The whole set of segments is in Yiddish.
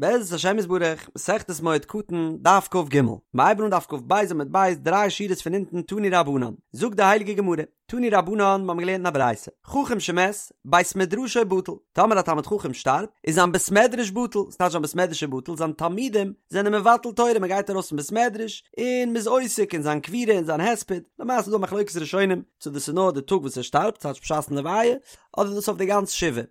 בעזרת השם יתברך, מסכת מועד קטן, דף כג, מ'הייבן אן דף כ"ב עמוד ב', דריי שורות פון אונטן תנו רבנן, זאגט די הייליגע גמרא, תנו רבנן, מ'האבן געלערנט אין א ברייתא, חכם שמת, בית מדרשו בטל, טאמער א תלמיד חכם שטארבט, איז זיין בית מדרש בטל, ס'טייטש זיין בית מדרש איז בטל, זיין תלמידים זענען מבטל תורה, מ'גייט ארויס פון בית מדרש, און מ'איז עוסק אין זיין קבורה און זיין הספד, למעשה איז דא א מחלוקת ראשונים, צו דאס איז נאר די טאג וואס ער שטארבט, ס'טייטש בשעת'ן לוויה, אדער דאס אויף די גאנץ שבעה.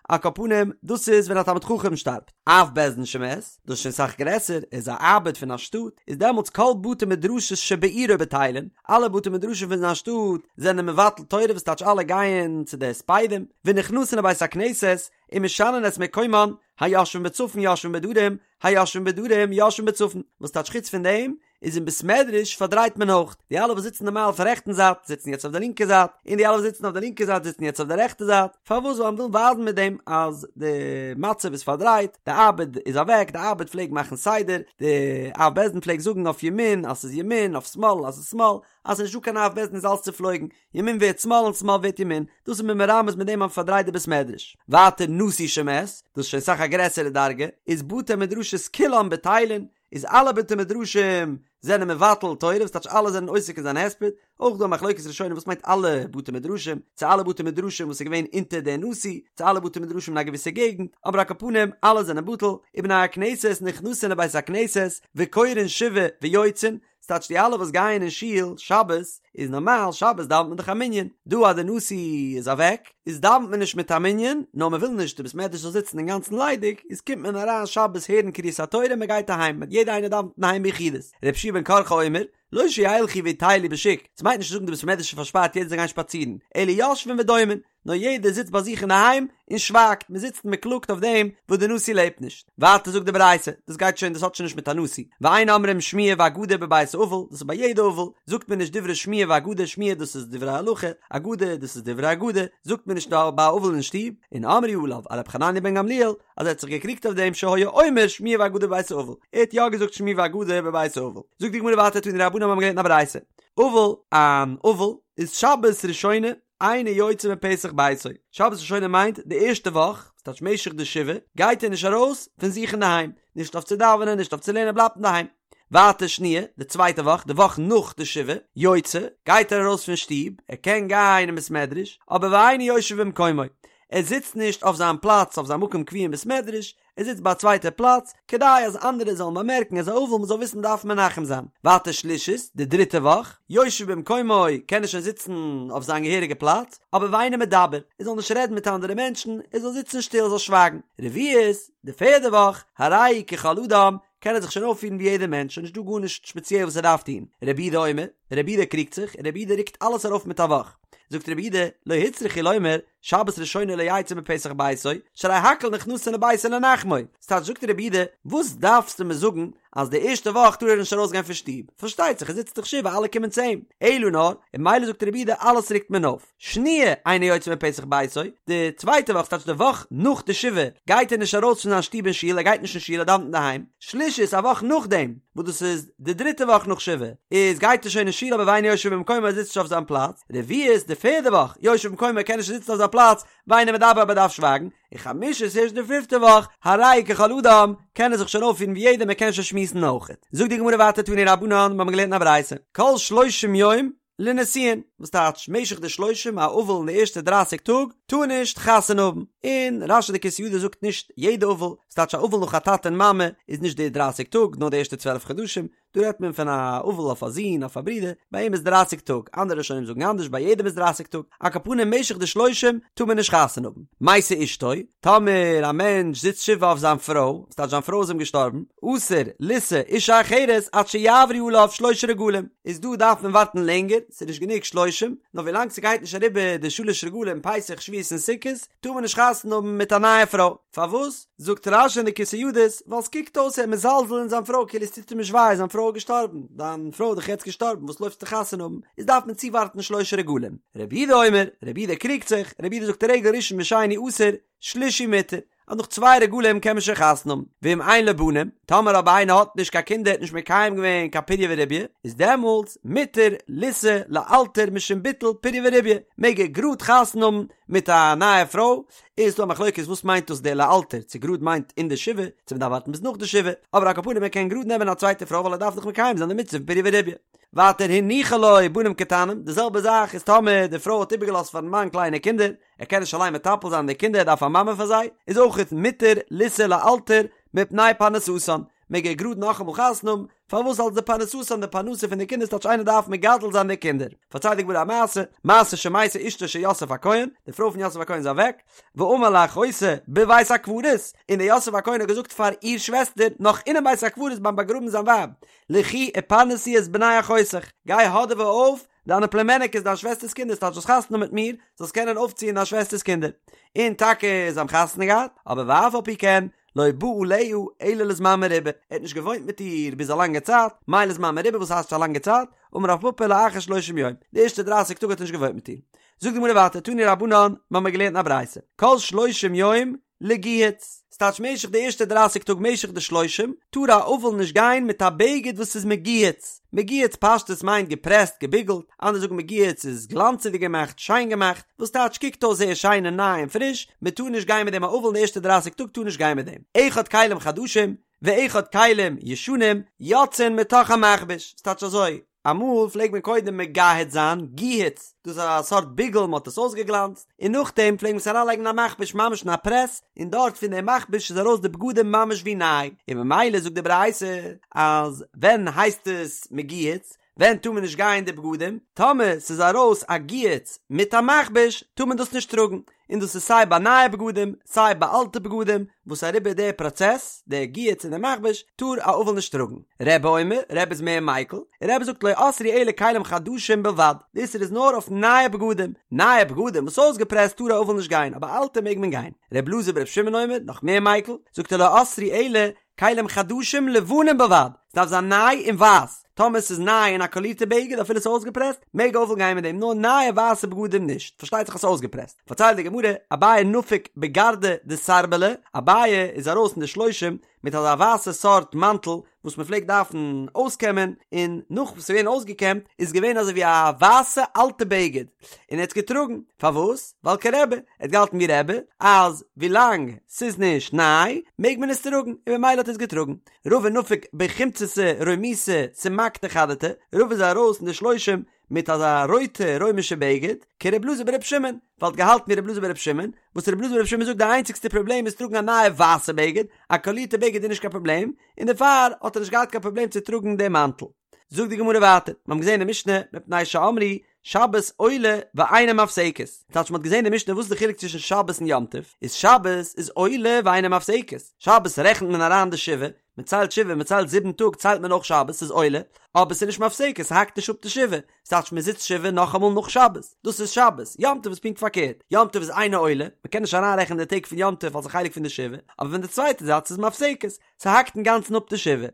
על כל פנים, דאס איז ווען א תלמיד חכם שטארבט. אב בית דין שמת, דאס איז שוין סאך גרעסער, ער איז א אב"ד פון א שטאט, איז דעמאלטס כל בתי מדרשות שבעירו בטילין, אלע בתי מדרשים פון זיין שטאט זענען מבטל תורה וואס טייטש אלע גייען צו די הספדים, ונכנסין לבית הכנסת, ומשנין את מקומן, היושבין בצפון יושבין בדרום, היושבין בדרום יושבין בצפון, וואס טייטש חוץ פון דעם, איז אין בית מדרש פארדרייט מען אויך, די אלע וואס זיצן נארמאל אויפן רעכטן זייט זיצן יעצט אויף די לינקע זייט, און די אלע וואס זיצן אויף די לינקע זייט זיצן יעצט אויף די רעכטע זייט, פארוואס? ווייל מ'וויל ווייזן מיט דעם אז די מצב איז פארדרייט, די אב"ד איז אוועק, די אב"ד פלעג מאכן סדר, די אב בית דין פלעג זאגן אויף ימין אז ס'איז ימין, אויף שמאל אז ס'איז שמאל, אז ס'איז נישטא קיין אב בית דין איז אלס צופלויגן, ימין ווערט שמאל און שמאל ווערט ימין, דאס איז מען מרמז מיט דעם אז מ'פארדרייט די בית מדרש. ווייטער נשיא שמת, דאס איז שוין סאך א גרעסערע דרגה, איז בתי מדרשות כולן בטילין, איז אלע בתי מדרשים זענען מבטל תורה וואס טייטש אלע זענען עוסק אין זיין הספד, אויך דא א מחלוקת ראשונים וואס מיינט אלע בתי מדרשים, צו אלע בתי מדרשים וואס איז געווען אונטער דער נשיא, צו אלע בתי מדרשים אין א געוויסע געגנט, אבער על כל פנים אלע זענען בטל, ובני הכנסת נכנסין לבית הכנסת וקורין שבעה ויוצאין, ס'טייטש די אלע וואס גייען אין שול שבת, איז נארמאל שבת דאווענט מען דאך א מנין, דא אז די נשיא איז אוועק, איז דאווענט מען נישט מיט א מנין, נאר מען וויל נישט די בית מדרש זאל זיצן אינגאנצן ליידיג, איז קומט מען אריין שבת הערן קריאת התורה און מען גייט אהיים, יעדער איינער דאווענט אינדערהיים ביחידות. רבי יהושע בן קרחה אומר, לא שילכו ויטיילו בשוק, ס'מיינט נישט צו זאגן די בית מדרש איז פארשפארט יעדער זאל גיין שפאצירן, אלא יושבין ודומין, נאר יעדער זיצט ביי זיך אינדערהיים און שווייגט, מען זיצט און מען קלאגט אויף דעם וואס די נשיא לעבט נישט. ווייטער זאגט די ברייתא, דאס גייט שוין, דאס האט שוין נישט מיט א נשיא, ואין אומרים שמועה ואגדה בבית אבל, דאס איז ביי יעדע אבל, זאגט מען נישט דברי שמועה ואגדה, שמועה דאס איז דברי הלכה, אגדה דאס איז דברי אגדה, זאגט מען נישט ביי א אבל אין שטוב, און אמרו עליו על רבי חנניה בן גמליאל, אז ער האט זיך געקריגט אויף דעם שהיה אומר שמועה ואגדה בבית אבל, ער האט יא געזאגט שמועה ואגדה בבית אבל. זאגט די גמרא ווייטער תנו רבנן האבן געלערנט אין א ברייתא, אבל, אן אבל איז שבת ראשונה, אינו יוצא מפתח ביתו, שבת ראשונה מיינט די ערשטע וואך, ס'טייטש משך די שבעה, גייט ער נישט ארויס פון זיך אינדערהיים, נישט אויף צו דאווענען, נישט אויף צו לערנען, ער בלייבט אינדערהיים. ווייטער שניה, די צווייטע וואך, די וואך נאך די שבעה, יוצא, גייט ער ארויס פון שטוב, ער קען גיין אין בית מדרש, אבער ואינו יושב במקומו, ער זיצט נישט אויף זיין פלאץ, אויף זיין מקום קבוע אין בית מדרש, ער זיצט ביי א צווייטע פלאץ, כדי אז אנדערע זאלן באמערקן ער איז א אבל מ'זאל וויסן מ'דארף מנחם זיין. ווייטער שלישית, די דריטע וואך, יושב במקומו, קען ער שוין זיצן אויף זיין געהעריגע פלאץ, אבער ואינו מדבר, ער זאל נישט רעדן מיט אנדערע מענטשן, ער זאל זיצן שטיל, ער זאל שווייגן. רביעית, די פערדע וואך, הרי הוא ככל אדם, קען ער זיך שוין אויפפירן ווי יעדער מענטש, שוין נישטא גארנישט שפעציעל וואס ער דארף טון. רבי יהודה אומר, רבי יהודה קריגט זיך, און רבי יהודה רוקט אלעס ארויף מיט א וואך. זאגט רבי יהודה, לא הוצרכו לומר, שבת ראשונה לא יצא מפתח ביתו, שהרי הכל נכנסין לביתו לנחמו. ס'טייטש זאגט רבי יהודה, וואס דארפסטו מיר זאגן אז די ערשטע וואך טאר ער נישט ארויסגיין פון שטוב? פארשטייט זיך ער זיצט דאך שבעה אלע קומען צו אים. אלא נאר, און ממילא זאגט רבי יהודה אלעס רוקט מען אויף. שניה אינו יוצא מפתח ביתו, די צווייטע וואך, ס'טייטש די וואך נאך די שבעה, גייט ער נישט ארויס פון זיין שטוב אין שול, ער גייט נישט אין שול, ער דאווענט אינדערהיים. שלישית, א וואך נאכדעם, וואס דאס איז די דריטע וואך נאך שבעה, איז גייט ער שוין אין שול אבער ואינו יושב במקומו ער זיצט נישט אויף זיין פלאץ. רביעית, די פערדע וואך, יושב במקומו ער קען נישט זיצן אויף זיין פלאץ, ואינו מדבר אבער דארף שווייגן. און חמישית ערשט די פיפטע וואך, הרי הוא ככל אדם, קען ער זיך שוין אויפפירן ווי יעדער מען קען שוין שמועסן אויכעט. זאגט די גמרא ווייטער תנו רבנן, מיר האבן געלערנט אין א ברייתא, כל שלושים יום, לנישואין, וואס טייטש משך די שלושים, א אבל אין די ערשטע דרייסיג טאג טאר נישט חתונה האבן, און רש"י די כתבי ידות זאגט נישט יעדע אבל, ס'טייטש א אבל נאך א טאטע און מאמע איז נישט די דרייסיג טאג נאר די ערשטע צוועלף חדשים, דא רעדט מען פון א אבל אויף א זון אויף א ברודער, ביי אים איז דרייסיג טאג, אנדערע ראשונים זאגן אנדערש ביי יעדעם איז דרייסיג טאג, על כל פנים משך די שלושים טאר מען נישט חתונה האבן. מתה אשתו, טאמער א מענטש זיצט שבעה אויף זיין פרוי, ס'טייטש זיין פרוי איז אים געשטארבן, אסור לישא אישה אחרת עד שיעברו עליו שלשה רגלים, איז דא דארף מען ווארטן לענגער, ס'איז נישט גענוג שלושים, נאר ווילאנג ס'גייט נישט אריבער די שלש רגלים פסח שבועות און סוכות, טאר מען נישט חתונה האבן מיט א נייע פרוי. פארוואס? זאגט רש"י אין די כתבי ידות, ווייל ס'קוקט אויס ער איז מזלזל אין זיין פרוי כאילו עס טוט אים נישט וויי זיין פרוי איז געשטארבן, דיין פרוי איז דאך יעצט געשטארבן וואס לויפסטו חתונה האבן, איז דארף מען צואווארטן שלשה רגלים. רבי יהודה אומר, רבי יהודה קריגט זיך, רבי יהודה זאגט רגל ראשון ושני אסור, שלישי מותר, אז נאך צוויי רגלים קען מען שוין חתונה האבן, ואם אין לו בנים, טאמער אבער איינער האט נישט קיין קינדער האט נישט מקיים געווען קיין פריה ורביה, איז דעמאלטס מותר לישא לאלתר משום ביטול פריה ורביה, מעג ער גראד חתונה האבן מיט א נייע פרוי, איז דא א מחלוקת וואס מיינט דאס די לאלתר, צו גראד מיינט אין די שבעה, צו מ'דארף ווארטן ביז נאך די שבעה, אבער על כל פנים ער קען גראד נעמען א צווייטע פרוי ווייל ער דארף דאך מקיים זיין די מצוה פון פריה ורביה. ווייטער הניחה לו בנים קטנים, די זעלבע זאך איז טאמער די פרוי האט איבערגעלאזט פארן מאן קליינע קינדער, ער קען נישט אליין מטפל זיין די קינדער ער דארף א מאמע פאר זיי, איז אויכעט מותר לישא לאלתר מפני פרנסתן, מעג ער גראד נאכאמאל חתונה האבן, פארוואס אלס די פרנסתן די פרנסה פון די קינדער ס'טייטש איינער דארף מגדל זיין די קינדער, פארציילט די גמרא א מעשה, מעשה שמתה אשתו של יוסף הכהן, די פרוי פון יוסף הכהן איז אוועק, ואמר לאחותה בבית הקברות, און דער יוסף הכהן האט געזאגט פאר איר שוועסטער נאך אינעם בית הקברות ביים באגראבן זיין ווייב, לכי ופרנסי את בני אחותך, גיי האדעווע אויף דיינע פלומעניקעס דיין שוועסטער'ס קינדער, ס'טייטש זאלסט חתונה האבן מיט מיר, זאלסט קענען אויפציען דיין שוועסטער'ס קינדער. און טאקע זיי האבן חתונה געהאט, אבער ואף על פי כן, לא בא עליה אלא לזמן מרובה, ער האט נישט געוואוינט מיט איר ביז א לאנגע צייט, מאי לזמן מרובה וואס הייסט א לאנגע צייט, אמר רב פפא לאחר שלושים יום, די ערשטע דרייסיג טאג האט ער נישט געוואוינט מיט איר. זאגט די גמרא ווייטער, תנו רבנן, מ'האמיר געלערנט אין א ברייתא, כל שלושים יום לגיהוץ, ס'טייטש משך די ערשטע דרייסיג טאג משך די שלושים, טאר א אבל נישט גיין מיט א בגד וואס איז מגוהץ, מגוהץ פשטות מיינט געפרעסט געביגלט, אנדערע זאגן מגוהץ איז גלאנצעדיג געמאכט, שיין געמאכט, וואס טייטש קוקט אויס זייער שיין און ניי און פריש, מען טאר נישט גיין מיט דעם א אבל אין די ערשטע דרייסיג טאג טאר נישט גיין מיט דעם, אחד כלים חדשים ואחד כלים ישנים יוצאין מתוך המכבש, ס'טייטש אזוי, אמאל פלעגט מען קודם מגהץ זיין, גיהוץ, דאס איז א סארט ביגל מען האט עס אויסגעגלאנצט, און נאכדעם פלעגט מען עס אריינלייגן אין א מכבש ממש אין א פרעס, און דארט פון דעם מכבש איז ארויס די בגדים ממש ווי ניי, און ממילא זאגט די ברייתא אז ווען הייסט עס מגוהץ, ווען טאר מען נישט גיין די בגדים? טאמער ס'איז ארויס א גיהוץ מיט א מכבש טאר מען דאס נישט טראגן, און דאס איז סיי ביי נייע בגדים סיי ביי אלטע בגדים וואס אריבער די פראצעס, די גיהוץ און די מכבש, טאר א אבל נישט טראגן. רבי אומר, רבי איז מער מיקל, און רבי זאגט לא אסרו אלא כלים חדשים בלבד, די איסור איז נאר אויף נייע בגדים, נייע בגדים וואס אויסגעפרעסט טאר א אבל נישט גיין, אבער אלטע מעג מען גיין. רבי אלעזר ברבי שמעון אומר, נאך מער מיקל, זאגט ער לא אסרו אלא כלים חדשים לבנים בלבד, ס'דארף זיין ניי און ווייס, טאמער ס'איז ניי און א קאלירטע בגד אפילו ס'איז אויסגעפרעסט, מעג א אבל גיין מיט דעם, נאר נייע ווייסע בגדים נישט, פארשטייט זיך אז ס'איז אויסגעפרעסט. פארציילט די גמרא, אביי נפק בגרדא דסרבלא, אביי איז ארויס אין די שלושים מיט אזא ווייסע סארט מאנטל וואס מ'פלעגט דארפן אויסקעמען, און נאך וואס ס'איז געווען אויסגעקעמט איז געווען אזוי ווי א ווייסע אלטע בגד, און ער האט עס געטראגן, פארוואס? ווייל כרבי, ער האט געהאלטן ווי רבי, אז ווילאנג ס'איז נישט ניי, מעג מען עס טראגן, און במילא האט ער עס געטראגן. רבא נפק בחומצתא רומיתא סומקתא חדתא, רבא איז ארויס אין די שלושים מיט אזא רויטע רוימישע בגד, כרבי אלעזר ברבי שמעון, ווייל ער האט געהאלטן ווי רבי אלעזר ברבי שמעון, וואס רבי אלעזר ברבי שמעון זאגט די איינציגסטע פראבלעם איז טראגן א נייע ווייסע בגד, א קאלירטע בגד איז נישט קיין פראבלעם, און דערפאר האט ער נישט געהאט קיין פראבלעם צו טראגן דעם מאנטל. זאגט די גמרא ווייטער, מיר האבן געזען אין משנה, מפני שאמרו שבת עולה ואינה מפסקת, טייטש מ'האט געזען אין משנה וואס איז די חילוק צווישן שבת און יום טוב, איז שבת איז עולה ואינה מפסקת, שבת רעכנט מען אריין די שבעה, מען ציילט שבעה, מען ציילט זיבן טאג ציילט מען אויך שבת, ס'איז עולה, אבער ס'איז נישט מפסקת, ס'האקט נישט אפ די שבעה, ס'טייטש מען זיצט שבעה נאכאמאל נאך שבת, דאס איז שבת, יום טוב איז פונקט פארקערט, יום טוב איז אינה עולה, מען קען נישט אריינרעכענען די טעג פון יום טוב אלס א חלק פון די שבעה, אבער פון די צווייטע זייט ס'איז מפסקת, ס'האקט אינגאנצן אפ די שבעה.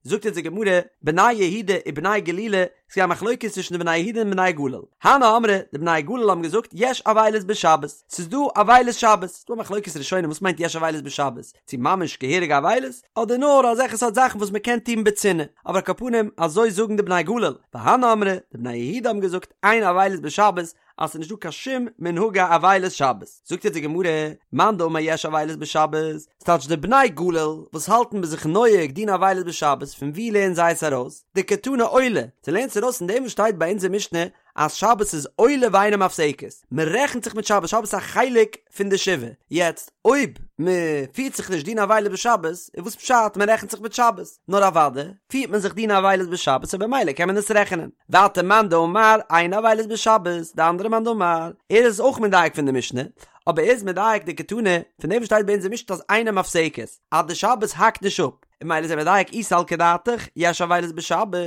זאגט אונז די גמרא, בני יהודה ובני גלילה, ס'איז געווען א מחלוקת צווישן די בני יהודה און בני גליל. הני אמרי, די בני גליל האבן געזאגט, יש אבילות בשבת, ס'איז דא אבילות שבת. ס'איז דא א מחלוקת ראשונים וואס מיינט יש אבילות בשבת, צו ממש געהעריגע אבילות, אדער נאר אזעלכע סארט זאכן וואס מ'קען טון בצנעה. אבער על כל פנים, אזוי זאגן די בני גליל. והני אמרי, די בני יהודה האבן געזאגט, אין אבילות בשבת, אז ס'איז נישטא קיין שום מנהגי אבילות שבת. זאגט יעצט די גמרא, מאן דאמר יש אבילות בשבת, ס'טייטש די בני גליל וואס האלטן ביי זיך נוהג דין אבילות בשבת, פון וואו לערנען זיי עס ארויס? דקתני עולה, זיי לערנען עס ארויס פון דעם וואס שטייט ביי אונזער משנה אז שבת איז עולה ואינה מפסקת, מען רעכנט זיך מיט שבת, שבת איז א חלק פון די שבעה, יעצט אויב מען פירט זיך נישט דין אבילות בשבת, איז וואס פשט מען רעכנט זיך מיט שבת? נאר אוודאי פירט מען זיך דין אבילות בשבת און במילא קען מען עס רעכענען. ווייטער מאן דאמר אין אבילות בשבת, די אנדערע מאן דאמר, ער איז אויך מדייק פון די משנה, אבער ער איז מדייק דקתני, פון דעם וואס שטייט ביי אונז אין משנה אז אינה מפסקת, אז די שבת האקט נישט אפ, און ממילא איז ער מדייק אי סלקא דעתך, יש אבילות בשבת,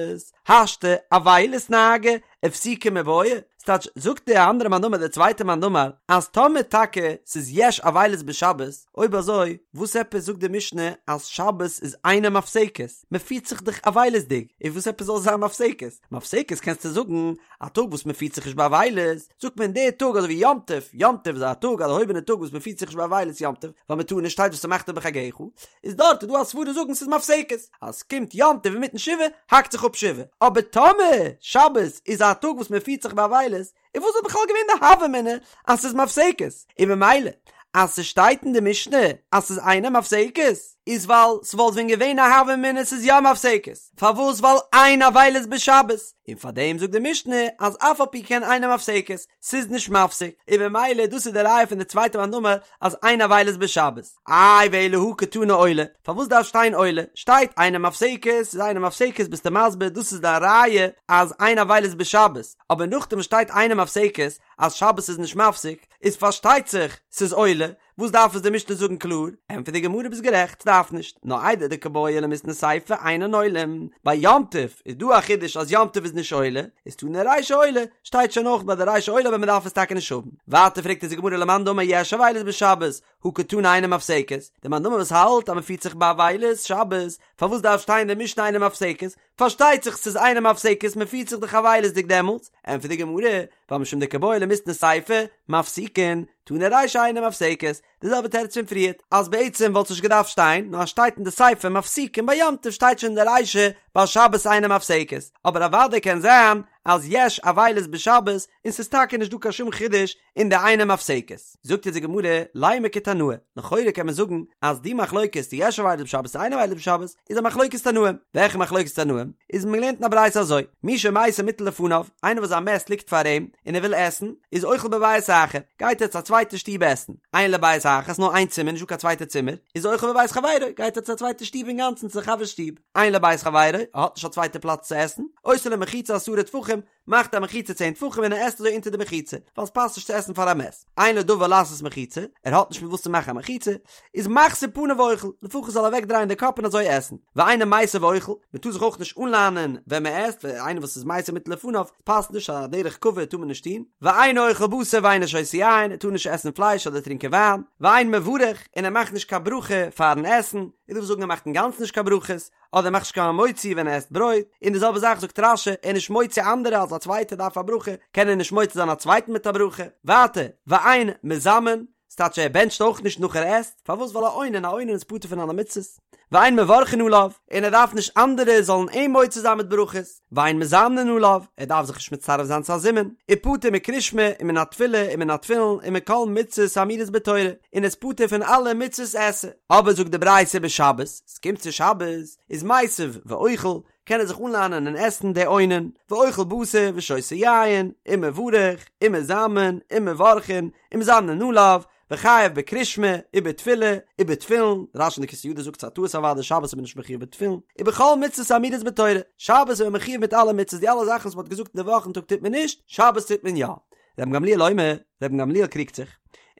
השתא אבילות נהגא, הפסוקי מיבעיא, ס'טייטש, זאגט די אנדערע מאן דאמר די צווייטע מאן דאמר, אז טאמער טאקע ס'איז יש אבילות בשבת, אויב אזוי וואס עפעס זאגט די משנה אז שבת איז אינה מפסקת, מ'פירט זיך דאך אבילות'דיג, און וואס עפעס זאל זיין מפסקת? מפסקת קענסטו זאגן א טאג וואס מ'פירט זיך נישט באבילות, זאגט מען די טאג אזוי ווי יום טוב, יום טוב איז א טאג א דערהויבענע טאג וואס מ'פירט זיך נישט באבילות יום טוב, ווייל מ'טאר נישט שטייט ושמחת בחגך, איז דארט איז דא א סברא זאגן ס'איז מפסקת, אז ס'קומט יום טוב אינמיטן שבעה האקט זיך אפ שבעה, אבער טאמער שבת איז א טאג וואס מ'פירט זיך באבילות, איז וואס וואלט בכלל געווען די הוה אמינא אז ס'איז מפסקת? און ממילא. אז ס'שטייט אין די משנה אז ס'איז אינה מפסקת, איז ווייל ס'וואלט ווען געווען א הוה אמינא ס'איז יא מפסקת, פארוואס ווייל אין אבילות בשבת, און פארדעם זאגט די משנה אז אף על פי כן אינה מפסקת, ס'איז נישט מפסיק, און במילא דאס איז די ראיה פון די צווייטע מאן דאמר אז אין אבילות בשבת. איי ואלא הא קתני עולה, פארוואס דארף שטיין עולה? שטייט אינה מפסקת, ס'איז אינה מפסקת ביסטו מסביר דאס איז דיין ראיה אז אין אבילות בשבת, אבער נאכדעם שטייט אינה מפסקת אז שבת איז נישט מפסיק, איז פארשטייט זיך ס'איז עולה, וואס דארף עס די משנה זאגן קלאר? ענטפערט די גמרא ביסט גערעכט ס'דארף נישט, נאר איידי דקא בעי למיתני סיפא אינן עולים, ביי יום טוב איז דא א חידוש אז יום טוב איז נישט עולה, איז תנא רישא עולה, שטייט שוין אויך ביי די רישא עולה אבער מ'דארף עס טאקע נישט האבן. ווייטער פרעגט אונז די גמרא למאן דאמר יש אבילות בשבת, הא קתני אינה מפסקת, די מאן דאמר וואס האלט אז מ'פירט זיך באבילות שבת, פארוואס דארף שטיין אין די משנה אינה מפסקת? פארשטייט זיך ס'איז אינה מפסקת מ'פירט זיך דאך אבילות'דיג דעמאלטס, ענטפערט די גמרא, ווייל משום דקא בעי למיתני סיפא, מפסיקין, תנא רישא אינה מפסקת, די זעלבע תירוץ פון פריערט, אז בעצם וואלט עס נישט געדארפט שטיין, נאר אז שטייט אין די סיפא מפסיקין ביי יום טוב שטייט שוין אין די רישא ביי שבת אינה מפסקת, אבער אוודאי קען זיין אז יש אבילות בשבת און ס'איז טאקע נישט דא קיין שום חידוש אין די אינה מפסקת. זאגט אונז די גמרא, לימא כתנאי, לכאורה קען מען זאגן אז די מחלוקת צו יש אבילות בשבת צו אין אבילות בשבת איז א מחלוקת תנאים, וועלכע מחלוקת תנאים? איז מען געלערנט אין א ברייתא אזוי, מי שמתו מוטל לפניו, איינער וואס זיין מת ליגט פאר אים און ער וויל עסן, איז אוכל בבית אחר, גייט ער צו א צווייטע שטוב עסן, אין לו בית אחר, ס'נאר איין צימער נישטא קיין צווייטע צימער, איז אוכל בבית חברו, גייט ער צו א צווייטע שטוב אינגאנצן צו די חבר'ס שטוב, אין לו בית חברו, ער האט נישט א צווייטע פלאץ צו עסן, עושה לו מחיצה עשרה טפחים, מאכט א מחיצה צען טפחים און ער עסט אזוי אונטער די מחיצה, ווייל עס פאסט נישט צו עסן פאר א מת. אין לו דבר לעשות מחיצה, ער האט נישט מיט וואס צו מאכן א מחיצה, איז מחזיר פניו ואוכל, לפחות זאל ער אוועק דרייען די קאפ און אזוי עסן. ואינו מיסב ואוכל, מען טאר זיך אויך נישט אנלאנען ווען מען עסט, ווייל איינער וואס איז מתו מוטל לפניו, פאסט נישט, א דרך כבוד טאר מען נישט טון. ואינו אוכל בשר ואינו שותה יין, ער טאר נישט עסן פלייש אדער טרינקען וויין. ואין מברך, און ער מאכט נישט קיין ברכה פארן עסן, איז דא וואס זאגן ער מאכט אינגאנצן נישט קיין ברכות, אדער מאכט נישט קיין המוציא ווען ער עסט ברויט, און די זעלבע זאך זאגט רש"י, ער איז נישט מוציא אנדערע אז א צווייטער דארף א ברכה, קען ער נישט מוציא זיין א צווייטן מיט א ברכה. ווייטער, ואין מזמן, ס'טייטש ער בענטשט אויך נישט נאך ער עסט, פארוואס ווייל א אונן, א אונן איז פטור פון אלע מצוות. ואין מברכין עליו, און ער דארף נישט אנדערע זאלן אים מוציא זיין מיט ברכות. ואין מזמנין עליו, ער דארף זיך נישט מצטרף זיין צו א זימון, ופטור מקריאת שמע ומן התפילה ומן התפילין ומכל מצוות האמורות בתורה, און איז פטור פון אלע מצוות עשה. אבער זאגט די ברייתא בשבת, ס'קומט צו שבת, איז מיסב ואוכל, קען ער זיך אנלאנען און עסן די אונן, ואוכל בשר ושותה יין, ומברך, ומזמן, ומברכין, ומזמנין עליו, וחייב בקריאת שמע, ובתפילה, ובתפילין, רש"י אין די כתבי ידות זאגט ס'א טעות אוודאי שבת איז מען נישט מחויב בתפילין, ובכל מצוות האמורות בתורה, שבת איז מען מחויב מיט אלע מצוות, די אלע זאכן וואס מ'האט געזאגט אין די וואכן טאג טוט מען נישט, שבת טוט מען יא. רבן גמליאל אומר, רבן גמליאל קריגט זיך,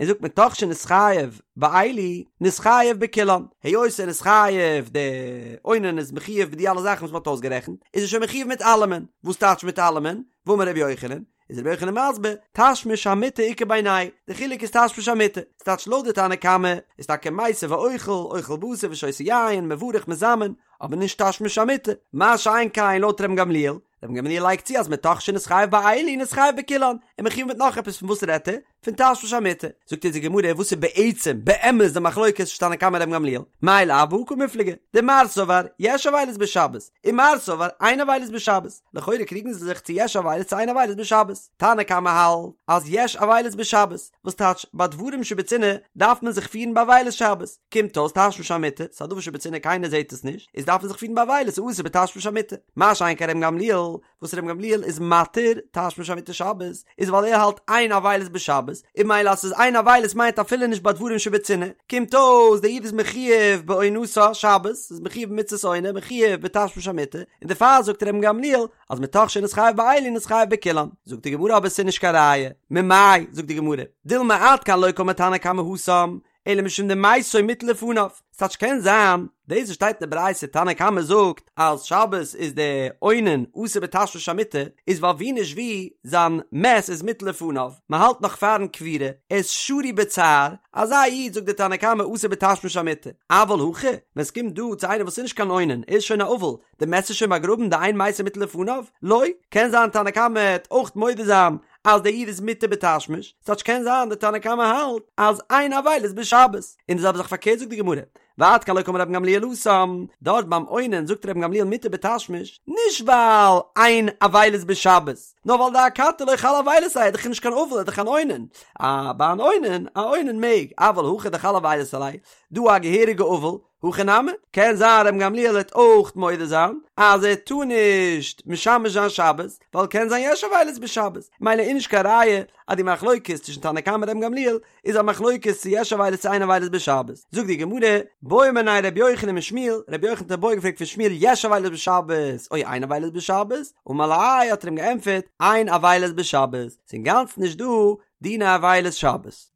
און זאגט מתוך שנתחייב באלו, נתחייב בכולן, היות ער איז חייב, די אונן איז מחויב מיט די אלע זאכן וואס מ'האט אויסגערעכנט, איז ער שוין מחויב מיט אלעמען, וואס טייטש מיט אלעמען? ואמר רבי יוחנן, איז רבי יוחנן מסביר, תשמיש המיטה איכא בינייהו, די חילוק איז תשמיש המיטה, ס'טייטש לויט די תנא קמא איז טאקע מיסב ואוכל, אוכל בשר ושותה יין, מברך מזמן, אבער נישט תשמיש המיטה, מה שאין כן לויט רבן גמליאל, רבן גמליאל לייגט צו אז מתוך שנתחייב באלו נתחייב בכולן, און מחויב מיט נאך עפעס פון וואס רעדט ער? פון תשמיש המיטה, זאגט אונז די גמרא וואס איז בעצם באמת די מחלוקת צווישן תנא קמא און רבן גמליאל, מאי לאו בהא קמיפלגי, דמר סבר יש אבילות בשבת, ומר סבר אין אבילות בשבת, לכאורה קריגן זיי זיך צו יש אבילות צו אין אבילות בשבת, תנא קמא האלט אז יש אבילות בשבת, וואס טייטש ביי דברים שבצנעה דארף מען זיך פירן באבילות שבת, קומט אויס תשמיש המיטה, ס'איז א דבר שבצנעה קיינער זעט עס נישט, איז דארף מען זיך פירן באבילות ס'איז אסור בתשמיש המיטה, מה שאין כן רבן גמליאל, וואס רבן גמליאל איז מתיר תשמיש המיטה שבת, איז ווייל ער האלט אין אבילות בשבת, און ממילא אז ס'איז אין אבילות מיינט אפילו נישט ביי דברים שבצנעה, קומט אויס דער איד איז מחויב בעונתה שבת, איז מחויב במצות עונה, מחויב בתשמיש המיטה, און דערפאר זאגט רבן גמליאל אז מתוך שנתחייב באלו נתחייב בכולן, זאגט די גמרא אבער ס'איז נישט קיין ראיה, ממאי, זאגט די גמרא, דילמא עד כאן לא קאמר תנא קמא התם, אלא משום דמתו מוטל לפניו, ס'טייטש קען זיין, דאס וואס שטייט אין די ברייתא תנא קמא זאגט אז שבת איז די אונן אסור בתשמיש המיטה, איז ווייל ווי נישט ווי זיין מת איז מוטל לפניו, מ'האלט נאך פארן קבירה, ער איז שרוי בצער, אזא איד זאגט די תנא קמא אסור בתשמיש המיטה, אבל הכא, ווען ס'קומט דא צו איינער וואס איז נישט קיין אונן, ער איז שוין א אבל, די מת איז שוין באגראבן דאין מתו מוטל לפניו? לא, קען זיין תנא קמא העט אויך מודה זיין אז דער איד איז מותר בתשמיש, ס'טייטש קען זיין די תנא קמא האלט אז אין אבילות בשבת, און די זעלבע זאך פארקערט זאגט די גמרא, ועד כאן לא קאמר רבן גמליאל התם, דארט ביים אונן זאגט רבן גמליאל מותר בתשמיש, נישט ווייל אין אבילות בשבת, נאר ווייל דאכתי לא חל אבילות עליה, ער איז דאך נישט קיין אבל ער איז דאך אן אונן, אה ביי אן אונן, א אונן מעג, אבל הכא דחל אבילות עליה, דא א געהעריגע אבל, הכי נמי, קען זיין רבן גמליאל וועט אויך מודה זיין אז ער טאר נישט משמש זיין שבת, ווייל קען זיין יש אבילות בשבת, ממילא איז נישט קיין ראיה אז די מחלוקת צווישן תנא קמא און רבן גמליאל איז א מחלוקת צו יש אבילות צו אין אבילות בשבת. זאגט די גמרא, בעא מיניה רבי יוחנן משמואל, רבי יוחנן האט א בעיא געפרעגט פון שמואל יש אבילות בשבת או אין אבילות בשבת, אמר ליה האט ער אים געענטפערט אין אבילות בשבת, ס'איז אינגאנצן נישט דא דיני אבילות שבת.